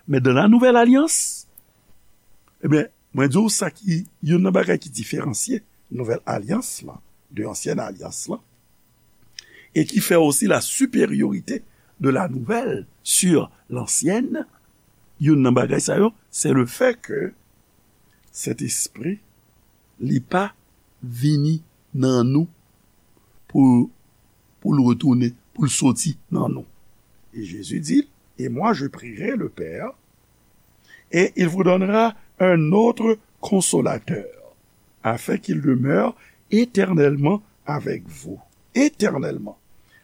Men dans la Nouvelle Alliance, ebyen, mwen di w sa ki, youn nan bagay ki diferansye Nouvelle Alliance lan de Ancienne Alliance lan, et qui fait aussi la supériorité de la nouvelle sur l'ancienne, youn nan bagay sa yo, c'est le fait que Sentespri, li pa vini nan nou pou, pou l retounen, pou l soti nan nou. Et Jésus dit, et moi je prierai le Père, et il vous donnera un autre consolateur, afin qu'il demeure éternellement avec vous. Éternellement.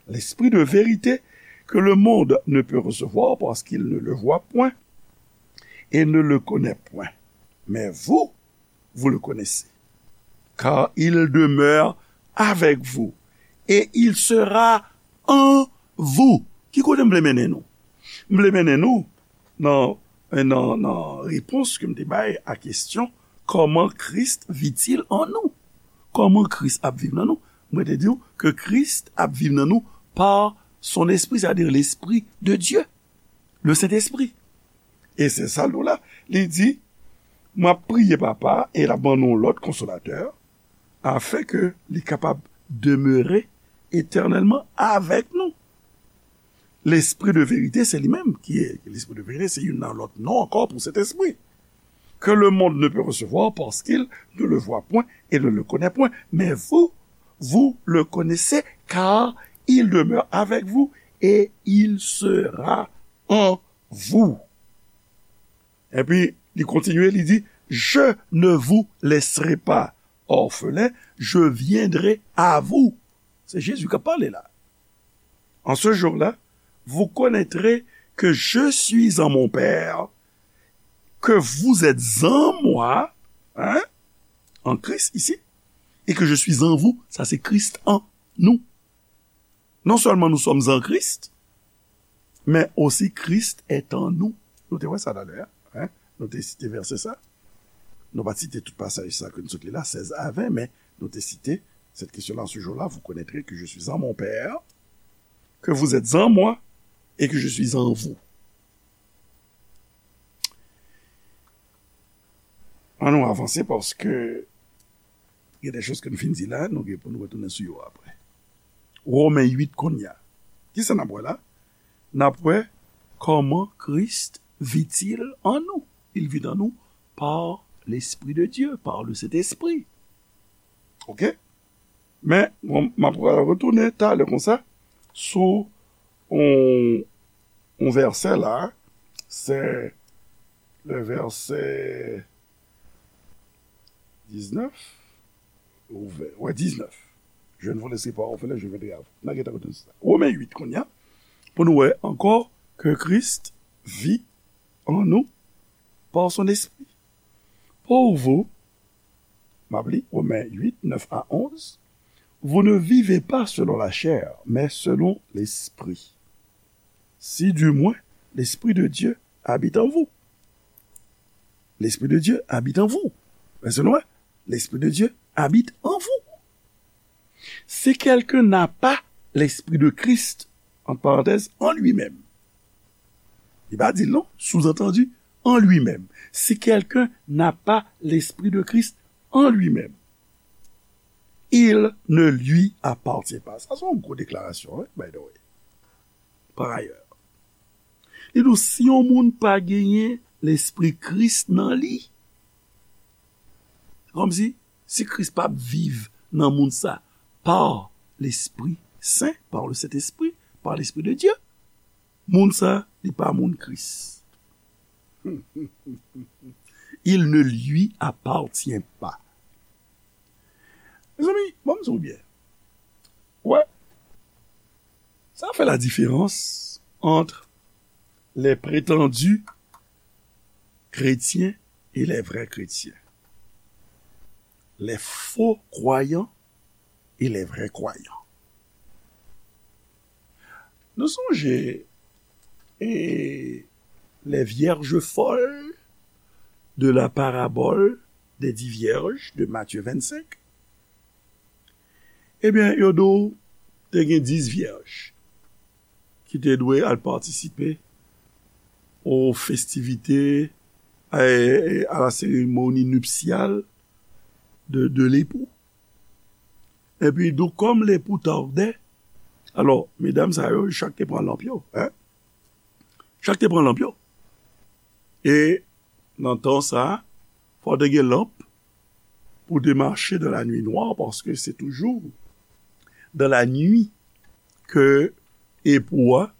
L'Esprit de vérité que le monde ne peut recevoir parce qu'il ne le voit point et ne le connaît point. Mais vous, vous le connaissez, car il demeure avec vous et il sera en vous. Ki kote m vle mennen nou? M vle mennen nou nan, nan, nan repons ke m te bay a kesyon, comment Christ vit-il en nous? Kòman Kris ap viv nan nou? Mwen te di w ke Kris ap viv nan nou par son esprit, c'est-à-dire l'Esprit de Dieu, le Saint-Esprit. E se sa l di w la. Li di, m ap priye Papa a, e l ap ban nou yon lòt konsolatè, afin ke li kapab demere etènèlman avèk nou. Lespri de verite, se li menm ki, lespri de verite, se youn nan lòt non ankò pou Sentespri. Que le monde ne peut recevoir parce qu'il ne le voit point et ne le connaît point. Mais vous, vous le connaissez, car il demeure avec vous et il sera en vous. Epi, li kontinye, li di, je ne vous laisserai pas orphelins, je viendrai à vous. Se Jezi k ap pale la. En ce jour-là, vous connaîtrez que je suis en mon Père, que vous êtes en moi, hein, en Christ ici, et que je suis en vous, ça c'est Christ en nous. Non seulement nous sommes en Christ, mais aussi Christ est en nous. Nou te wè sa talè a, hein? Nou te site vèsè sa. Nou pa t site tout pasaj sa ke n sot li la, sèz a ven, men nou te site cette question-là, en ce jour-là, vous connaîtrez que je suis en mon Père, que vous êtes en moi et que je suis en vous. Ann nou avanse paske gen de choz ke n fin di la, nou gen pou nou retounen sou yo apre. Women uit kounye a. Kisa n ap wè la? N ap wè comment Christ vit-il en nous. Il vit en nous par l'Esprit de Dieu, par le Saint-Esprit. Ok? Men, bon, m ap retounen talè konsa sou yon, yon vèsè la, se le vèsè diznèf, ou ven, wè, diznèf. Je ne vous laisserai pas orphelins, je viendrai à vous. N a gentan retounen sou sa. Women uit kounye a, pou nou wè ankò que Christ vit en nous par son Esprit. Pour vous, m ap li, Women uit, nèf a onz, vous ne vivez pas selon la chair, mais selon l'Esprit. Si du moins l'Esprit de Dieu habite en vous. L'Esprit de Dieu habite en vous. Vèsè nou wè, l'Esprit de Dieu habite en vous. Si quelqu'un n'a pas l'Esprit de Christ, entre parenthèses, en lui-même. Li pa di l non, sous-entendu, en lui-même. Si quelqu'un n'a pas l'Esprit de Christ en lui-même, il ne lui appartient pas. Sa se yon gwo deklarasyon, wi, by the way. Par ailleurs. Li di w, si yon moun pa genyen Lespri Kris nan li, kòmsi, si Kris pa ap viv nan moun sa, par l'Esprit Saint, par le Saint-Esprit, par l'Esprit de Dieu, moun sa, li pa moun Kris. Il ne lui appartient pas. Mezanmi, bon, m di w byen. Wè, sa fè la différence entre les prétendus chrétiens et les vrais chrétiens. Les faux croyants et les vrais croyants. Nou sonje, e, les vierges folles, de la parabole des dix vierges de Matthieu vingt-cinq, ebyen, yo di w te gen dis vyèj ki te dwe al patisipe aux festivités, à, à la cérémonie nuptiale de, de l'époux. Epi, donk, kòm lepou tardè, alò, medam sa yo, chak te pran lanp yo, en? Chak te pran lanp yo. E nan tan sa, fò te gen lanp pou te mache dans la nuit noire, paske se toujou dans la nuit ke epou a,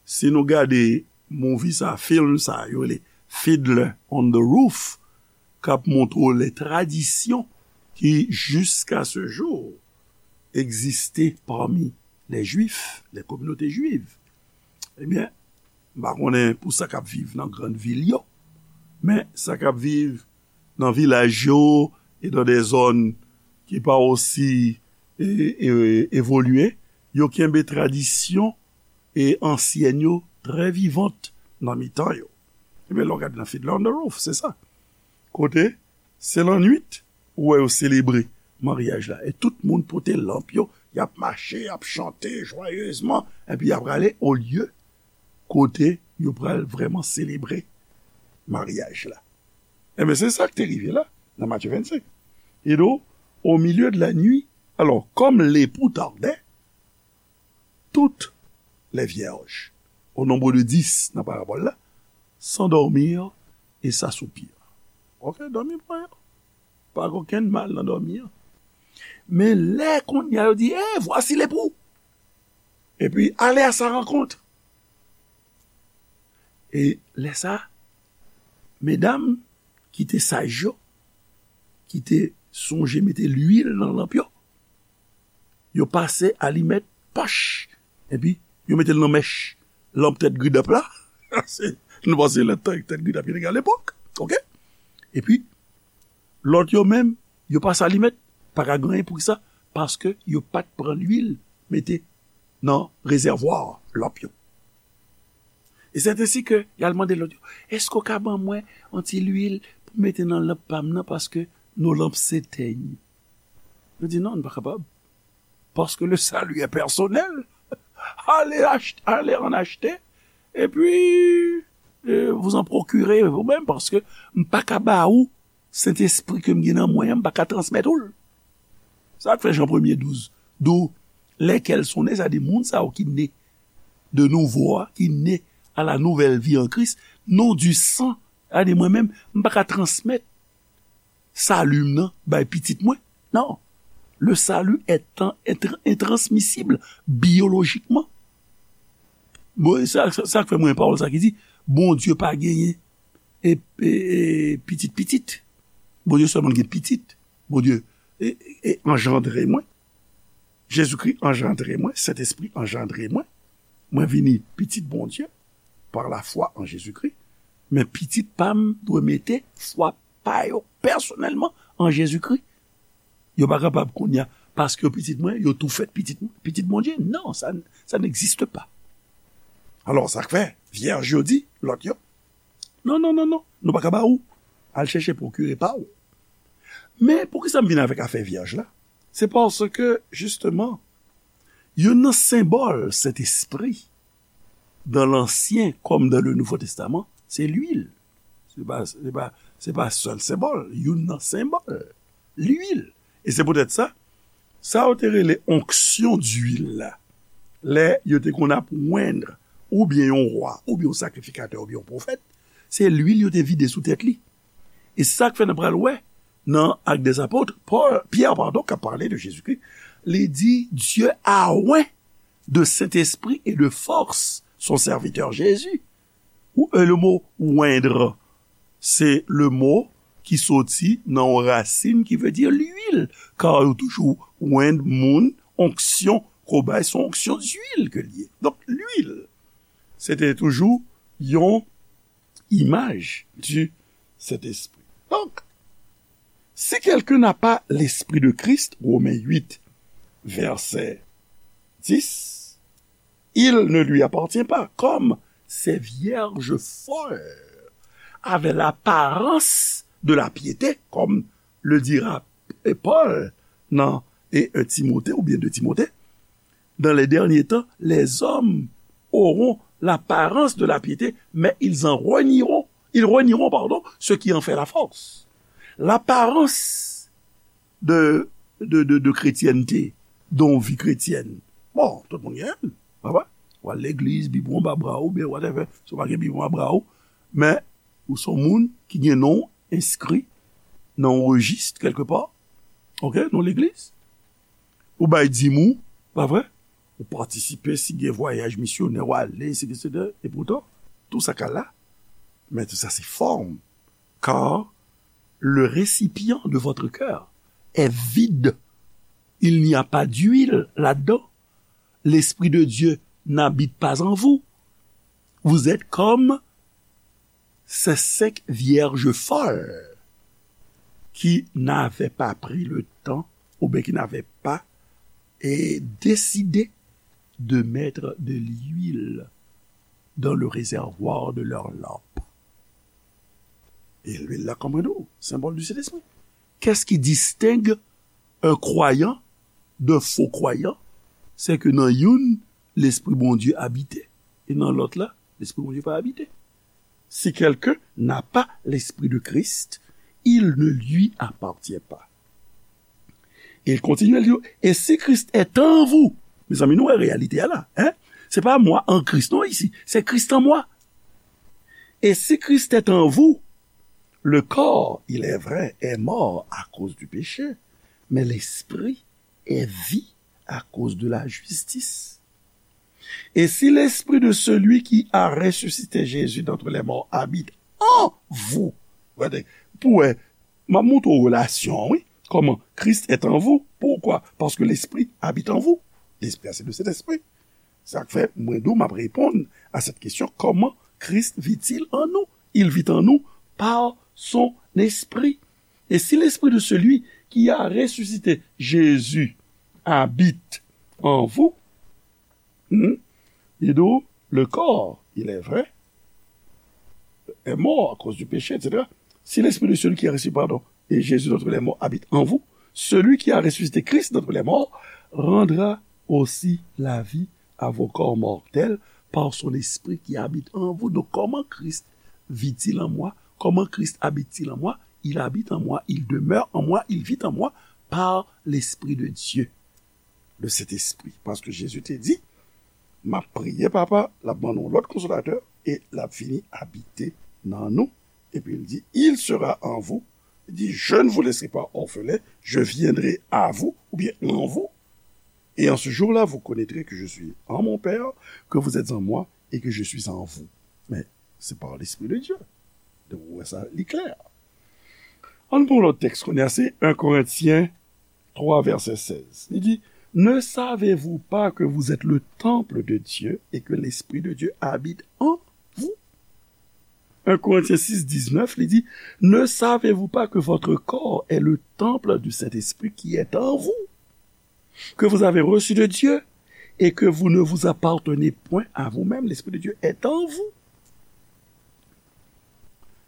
si nou gade movie sa, film sa, yo rele Fiddler on the Roof, k ap montre w les traditions qui, jusqu'à ce jour, existaient parmi les Juifs, les communautés juives. Ebyen, m pa konnen pou sa k ap viv nan grann vil yo, men sa k ap viv nan vilaj yo e dans des zones ki pa osi e, e, evolye, yo kenbe tradisyon e ansyèn yo trè vivant nan mitan yo. Ebyen, lè w gade nan Fiddler on the Roof, se sa. Kote, se lannwit, ou wè yo selebre maryaj la. E tout moun pote lanp yo, y ap mache, y ap chante jwayezman, epi y ap prale olye kote yo pral vrèman selebre maryaj la. Ebyen, se sa k te rive la, nan Matye vennsenk. E do, au milieu de la nuit, alò, comme l'époux tardait, toutes les vierges, au nombre de dix nan parabòl la, s'endormirent et s'assoupirent. Ok, dòmi pran yo. Pa gen okenn mal nan dòmi an. Men lè kounye a yo di, eh, voici l'époux. Epi, allez à sa rencontre. E lè sa, medam ki te saj yo, ki te sonje mete lwil nan lanp yo, yo pase alimèt pòch, epi yo mete l nan mèch lanp tèt gridap la. Se, nou panse lanp tèt gridap yo te gen alepòk, ok? Epi, lòt yo menm, yo pase alimèt, pa ka gen anyen. Poukisa? Paske yo pa t pran lwil mete nan rezèvwa lanp yo. E c'est ainsi que y al mande lòt yo, èske w ka ban mwen yon ti lwil pou mete nan lanp pa m nan, paske nos lampes s'éteignent. Yo di, non, nou pa kapab. Parce que le salut est personnel. Allez, ach- allez en acheter. Et puis, euh, vous en procurez vous-même, paske m pa ka ba ou Sentespri ke m gen nan mwen an, m pa ka transmèt ou l. Sa k fè Jan premye douz, d'où lesquels sont nés, sa di moun sa yo ki ne de nouvo a, ki ne à la nouvelle vie en Christ, non du sang, sa di mwen menm, m pa ka transmèt sali m nan bay pitit mwen. Non. Le salut est, est intransmissible biologiquement. Bon, sa, sa, sa k fè mwen pawòl sa ki di, Bondye pa genyen e, e, e pitit pitit. Bondye sèlman gen pitit. Bondye e, e, e anjandre mwen. Jezikri anjandre mwen, Sentespri anjandre mwen. Mwen vini pitit Bondye par la foi en Jésus-Christ. Men pitit pa m dwe mete fwa pa yo pèsonèlman an Jezikri. Yo pa kapab kounye a, paske yo pitit mwen, yo tou fèt pitit, pitit Bondye. Non, sa, ça n'existe pas. Alò, sa k fè, vyèj yo di, lòt yo, non, non, non, non, nou pa ka ba ou. Al chèche pwokire pa ou. Men, poukisa m vin avèk afè vyèj la? Se paske, jisteman, youn nan senbòl Sentespri, dans l'Ancien comme dans le Nouveau Testament, se lwil. Se pa, se pa, se pa sèl senbòl, youn nan senbòl. Lwil. E se poutèt sa, sa yo te rele onction d'huile la, lè yo te konn ap wend oubyen yon wa, oubyen yon sakrifikatè, oubyen yon pwofèt, se lwil yo te vide sou tèt li. E sa k fè n pral wè nan Actes des Apôtres, Paul, Pierre, pardon, k ap pale de Jezikri, li di, Dieu a oint de Saint-Esprit et de force son serviteur Jésus. Ou, euh, le mot oindre, se le mot ki soti nan yon rasin ki vle di lwil, kar yo toujou wend moun, onksyon, kobay, se yon onksyon d'huile ke l ye. Donk, lwil, se te toujou yon imaj du Saint-Esprit. Donc, si quelqu'un n'a pas l'Esprit de Christ, Romains huit, verset dix, il ne lui appartient pas, comme ces vierges folles avaient l'apparence de la piété, comme le dira Paul dans et un Timothée ou bien deux Timothée, dans les derniers temps, les hommes auront l'apparence de la piété, mais ils en renieront, ils renieront, pardon, ce qui en fait la force. L'apparence de, de, de, de chrétienté, de yon vi kretyèn. Bon, tout moun gen, pa vre? Ou al legliz, Bib ou anba bra ou, oubyen whatever, si w pa gen Bib ou anba bra ou, men ou se yon moun ki gen non w enskri nan yon rejis kèlkepa, ok, nan legliz. Ou bay dim ou, pa vre? Ou patisipe si gen vwayaj misyonè w ale, etsetera. Epoutan, tou sa ka la, men tou sa se fòm. Car le récipient de votre cœur est vide. Il n'y a pas d'huile là-dedans. L'Esprit de Dieu n'habite pas en vous. Vous êtes comme ces cinq vierges folles qui n'avaient pas pris le temps, ou bien qui n'avaient pas eh, décidé de mettre de l'huile dans le réservoir de leur lampe. Et l'huile là, comme nous, symbole du Saint-Esprit. Qu'est-ce qui distingue un croyant d'un faux croyant? C'est que dans youn, l'Esprit Bondye abite, et dans l'autre là, l'Esprit Bondye pas habité. Si quelqu'un n'a pas l'Esprit de Christ, il ne lui appartient pas. Et il continue, il dit, et si Christ est en vous, mezanmi, nou wè reyalite a la, hein? Se pa moi en Christ, non, isi, c'est Christ en moi. Et si Christ est en vous, le corps, il est vrai, est mort à cause du péché, mais l'esprit est vie à cause de la justice. Et si l'esprit de celui qui a ressuscité Jésus d'entre les morts habite en vous, pou wè, m ap montre w relasyon, wi. Comment Christ est en vous. Pourquoi? Parce que l'esprit habite en vous. L'esprit, c'est le Saint-Esprit. Sa k fè mwen di w m ap reponn à cette question, comment Christ vit-il en nous? Il vit en nous par son esprit. Et si l'esprit de celui qui a ressuscité Jésus habite en vous, hmm, il dit, le corps, il est vrai, est mort à cause du péché, etsetera. Si l'esprit de celui qui a ressuscité, pardon, et Jésus d'entre les morts habite en vous, celui qui a ressuscité Christ d'entre les morts rendra aussi la vie à vos corps mortels par son esprit qui habite en vous. Donc, comment Christ vit-il en moi? Comment Christ habite-t-il en moi? Il habite en moi, il demeure en moi, il vit en moi par l'Esprit de Dieu, le Saint-Esprit. Paske Jezi te di, m ap priye Papa, l ap ban nou lòt konsolatè, e l ap vini abite nan nou. Epi l di, il sera en vous. Il dit, je ne vous laisserai pas orphelins, je viendrai à vous, ou bien en vous. Et en ce jour-là, vous connaîtrez que je suis en mon Père, que vous êtes en moi, et que je suis en vous. Mais c'est par l'Esprit de Dieu. Donk, ou wè sa, li klè. Ann pran yon lòt tèks kounye a, se un Corinthiens trois, verset seize. Li di, ne savez-vous pas que vous êtes le temple de Dieu et que l'Esprit de Dieu habite en vous? Un Corinthiens six, dix-neuf, li di, ne savez-vous pas que votre corps est le temple du Saint-Esprit qui est en vous, que vous avez reçu de Dieu et que vous ne vous appartenez point à vous-même, l'Esprit de Dieu est en vous?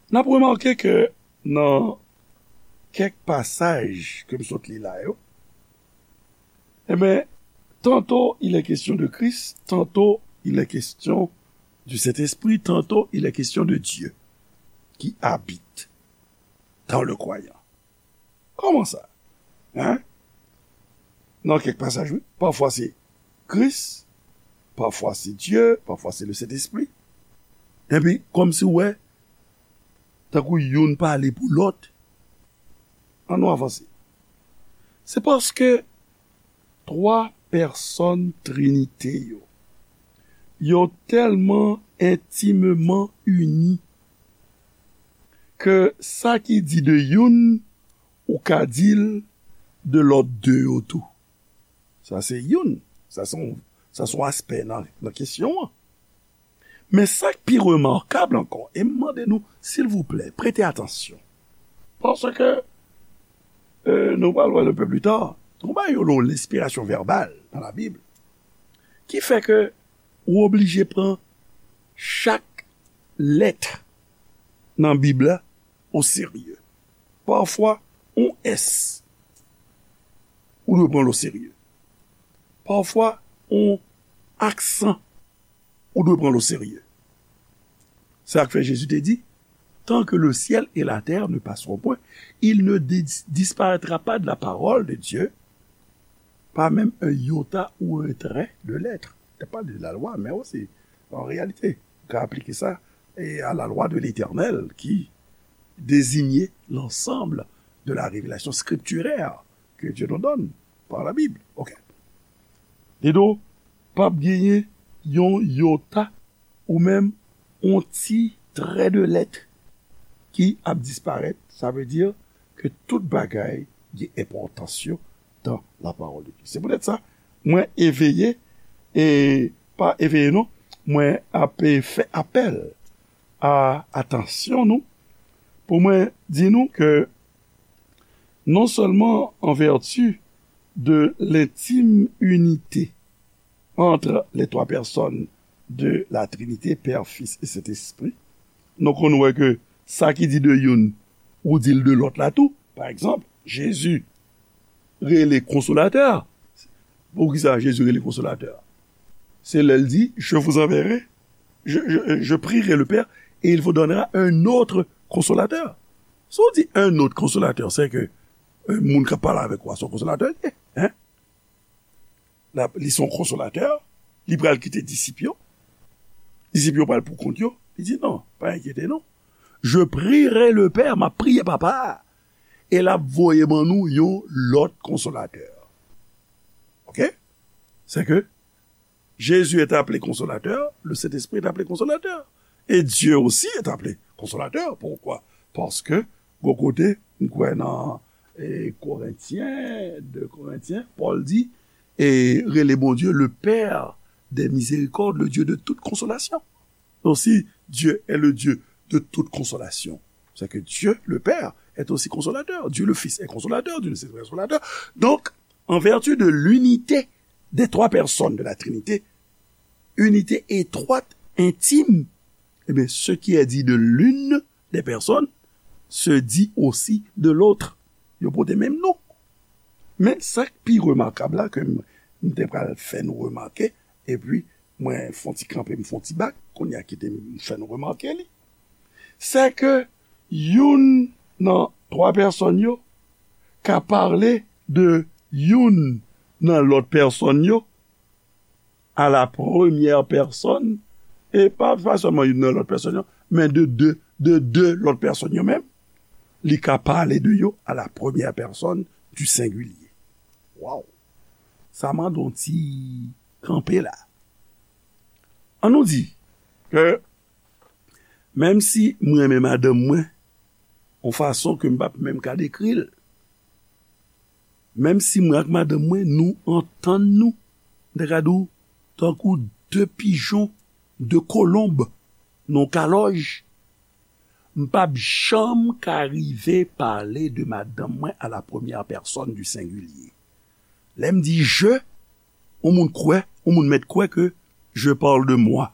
N ap remake ke nan kèk pasaj ke m sot li la yo, ebyen, tantôt il est question de Christ, tantôt il est question du Saint-Esprit, tantôt il est question de Dieu qui habite dans le croyant. Kòman sa? Hein? Nan kèk pasaj, wi. Pafwa se Kris, pafwa se Dye, pafwa se le Sentespri. Epi, kòmsi w wè, tankou youn pale pou lòt. Ann nou avanse. Se paske twa pèsòn Trinite yo, yo tèlman entimeman ini ke sa ki di de youn, ou ka di l de lòt de yo tou. Sa se youn. Sa se yon, sa se yon aspè nan, nan kesyon an. Men sa k pi remakab ankò, e m mande nou, silvouplè, prete atansyon. Paske, euh, nou pral wè l un peu plus tard, nou bay yo lenspirasyon vèbal nan Labib, ki fè ke ou oblije pran chak lèt nan Bib la o serye. Pafwa, yon S, ou dwe pran l oserye. Pafwa, yon aksan, ou dwe pran l oserye. Se sa k fè Jezi te di, tant que le ciel et la terre ne passeront point, il ne dis- disparaîtra pas de la parole de Dieu, pas même un iota ou un trait de lettre. Te pale de la lwa, men osi, an reyalite, ou ka aplike sa e, à la loi de l'Éternel qui désignait l'ensemble de la révélation scripturaire que Dieu nous donne par la Bible. Ok. Li di w, p ap genyen yon yota ou menm yon ti trè de lèt ki ap disparèt. Sa vle di ke tout bagay gen enpòtans yo dans la parole de Dieu. Se poutèt sa, mwen eveye, e pa eveye non, mwen ap fè apèl a atansyon nou, pou mwen di nou ke non seulement en vertu de l'intime unité entre les trois personnes de la Trinité, Père, Fils et Saint-Esprit, nou konn wè ke sa ki di de youn, ou di l de lòt la tou. Pa egzanp, Jezi rele Konsolatè. Poukisa Jezi rele Konsolatè? Se lè l di, je vous enverrai, je, je, je prierai le Père et il vous donnera un autre Consolateur. Si w di un autre Consolateur, se ke, euh, moun k ap pale avèk ou a se yon konsolatè li ye, hein? L ap, li se yon konsolatè, li pral kite disip yo. Disip yo pral pou kont yo. Li di, non, pa enkyete nou. Je prierai le Père, m ap priye Papa a, e l ap voye ban nou yon lòt konsolatè. Ok? Se ke Jésus est appelé consolateur, le Saint-Esprit est appelé consolateur. Et Dieu aussi est appelé consolateur. Pourquoi? Paske, gon kote, m kwè nan, e, Korentyen, de Korentyen, Pòl di, e, rele Bondye le Père des miséricordes, le Dieu de toute consolation. Donc, si Dieu est le Dieu de toute consolation, c'est que Dieu, le Père, est aussi consolateur. Dieu, le Fils, est consolateur. Dieu, le Saint-Esprit, est consolateur. Donc, en vertu de l'unité des trois personnes de la Trinité, unité étroite, intime, eh bien, ce qui est dit de l'une des personnes se dit aussi de l'autre. Yo pote menm non. Men sa k pi remakab la ke m, m te pral fè nou remake, epi mwen fon ti kanpe, m fon ti bak, kounye a kite m fè nou remake li. Se ke youn nan twa pèsòn yo ka pale de youn nan lòt pèsòn yo à la première personne, e pa, pa sèlman youn nan lòt pèsòn yo, men de de, de de lòt pèsòn yo menm, li ka pale de yo à la première personne du singulier. Waw! Sa mande yon ti kanpe la. An nou di ke menm si mwen renmen madanm mwen, yon fason ke m p ap menm ka dekri l, menm si mwen ak madanm mwen, nou antann nou, m ta ka di w, tankou de pijon, de kolonb, nan yon kalòj, m p ap janm ka rive pale de madanm mwen à la première personne du singulier. Lè m di je, yon moun kwè, yon moun mèt kwè ke je parle de moi.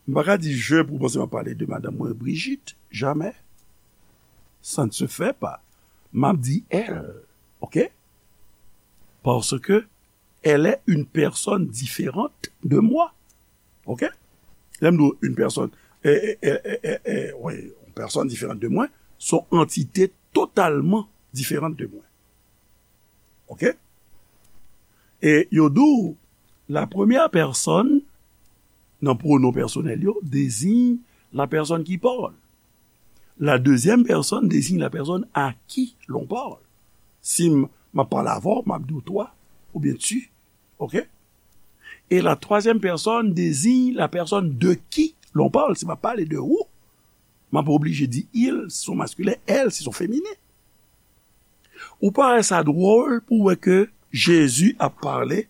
M pa ka di je pou w panse m ap pale de madanm mwen Brigitte, jamais. Ça ne se fait pas. M ap di elle, ok? Parce que elle est une personne différente de moi, ok? Lè m di w une personne, e, e, e, e, e, e, wi, une personne différente de moi, se yon antite totalman diferan de mwen. Ok? E yo di w, la première personne, nan pwonon pèsonèl yo, désigne la personne qui parle. La deuxième personne désigne la personne à qui l'on parle. Si m, m ap pale avè w, m ap di w toi, oubyen tu. Ok? Et la troisième personne désigne la personne de qui l'on parle. Si m ap pale de ou, m ap oblije di il, si se yon maskilen, elle, si se yon feminen. Ou pa wè sa dwòl pou w wè ke Jezi ap pale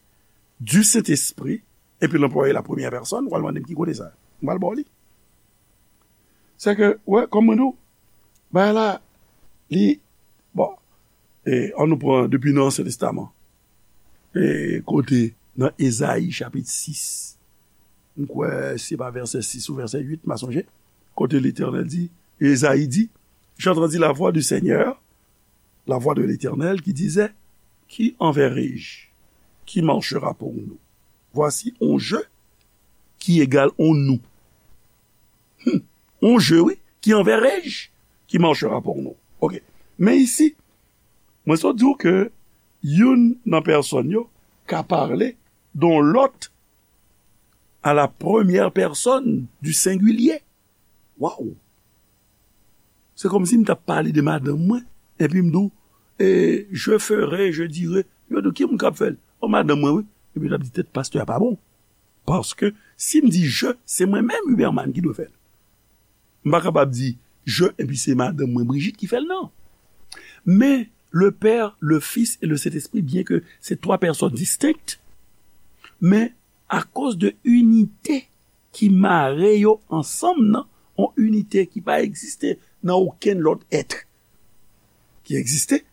du Saint-Esprit, epi l anplwaye la première personne, w al mande m ki kote sa. M pral ba w li. Se ke, wè, kòm mwen di w, bagay la, li, bon, e, an nou pran depi nan Ansyen Testaman. E, kote nan Ezayi chapit sis, m kwè se pa vèsè sis ou vèsè uit, m pa sonje, kote Letènèl di, Ezayi di, J'entendis la voix du Seigneur, la voix de l'Éternel qui disait, qui enverrai-je? Qui marchera pour nous? Voici un je qui égale un nous. Hmm. Un je, wi, qui enverrai-je? Qui marchera pour nous? Ok. Men isi, mwen sot di w ke youn nan pèsòn yo ka pale de yon lòt à la première personne du singulier. Waw! Se kòmsi m t ap pale de madanm mwen, epi m di w, e, je ferai, je dirai. Yo di w, ki moun k ap fè l? O, madanm mwen, wi. Epi l ap di, tèt pastè a pa bon. Paske si m di je, se mwen menm, Huberman, ki dwe fè l. M pa kapab di je, epi se madanm mwen, Brigitte, ki fè l, non. Men, le Père, le Fils et le Saint-Esprit, byen ke se twa pèsòn distenk, men akoz de inite ki mare yo ansanm nan, yon inite ki pa egziste nan okenn lòt èt ki egziste,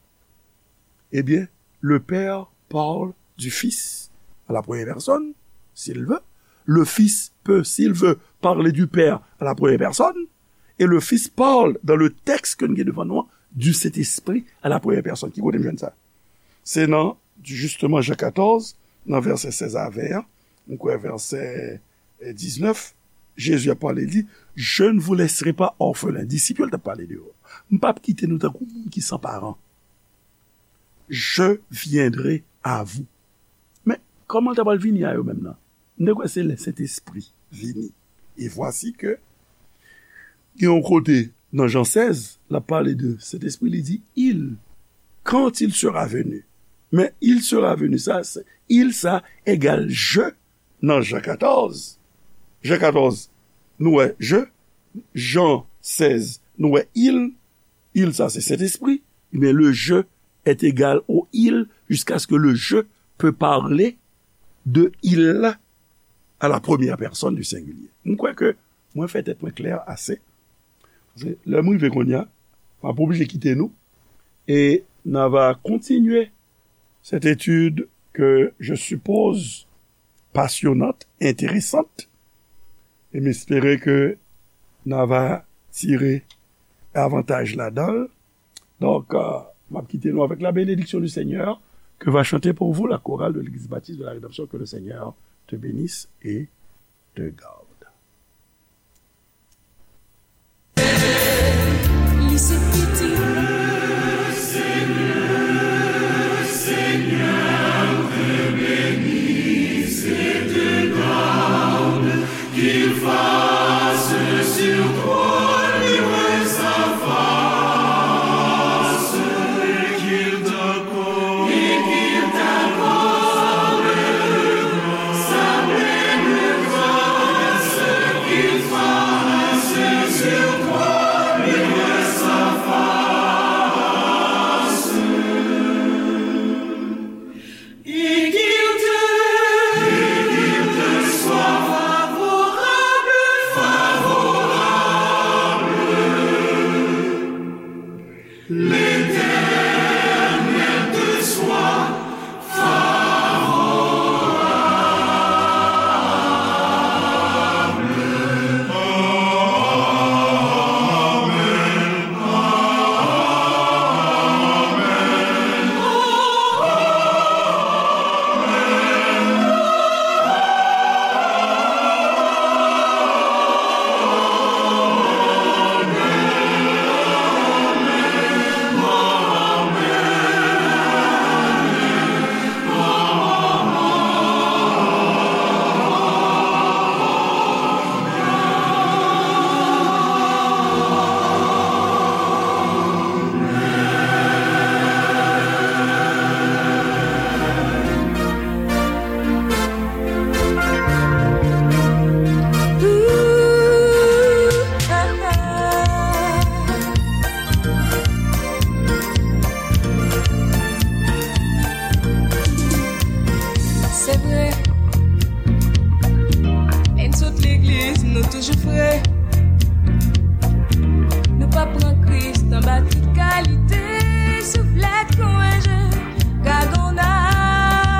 ebyen, le Père parle du Fils à la première personne, s'il veut. Le Fils peut, s'il veut, parler du Père à la première personne. Et le Fils parle dans le texte ke nou gen devan nou an, du Saint-Esprit à la première personne. Ki kote m jwenn sa? Se nan, justement, Jan katòz, nan vèsè sèz a ven an, m kwè vèsè, eh, diznèf, Jezi ap pale, li di, je ne vous laisserai pas orphelins. Disip yo l t ap pale de yo. M p ap kite nou tankou moun ki san paran. Je viendrai à vous. Men, kòman l ta pral vini a yo menm nan? M te kwè se lè Sentespri vini. E vwasi ke gen yon kote nan Jan sèz, l ap pale de Sentespri, li di, il, quand il sera venu. Men il sera venu, sa, se, il, sa, egal je nan Jan katòz. Jan katòz, nou wè je. Jan sèz, nou wè il. Il, sa, se Sentespri. Men le je est égal au il jusqu'à ce que le je peut parler de il à la première personne du singulier. M kwè ke mwen fè tèt mwen klè ase. Paske lè m rive kounye a, m ap oblije kite nou. Et n a va continuer cette étude que je suppose passionnante, intéressante. Et m espere ke n a va tire avantaj ladan l. Donc, euh, m ap kite nou avec la bénédiction du Seigneur que va chanter pour vous la chorale de l'Église baptiste de la Rédemption. Que le Seigneur te bénisse et te garde. Li se pitit. Qu'il fasse sur toi luire sa face, et qu'il t'accorde, et qu'il t'accorde sa pleine grâce, qu'il fasse sur toi luire sa face. Et qu'il te, et qu'il te soit favorable, favorable. L'Éternel te soit favorable. Amen. Se vre. Lè n sot legliz, nou toujou fre.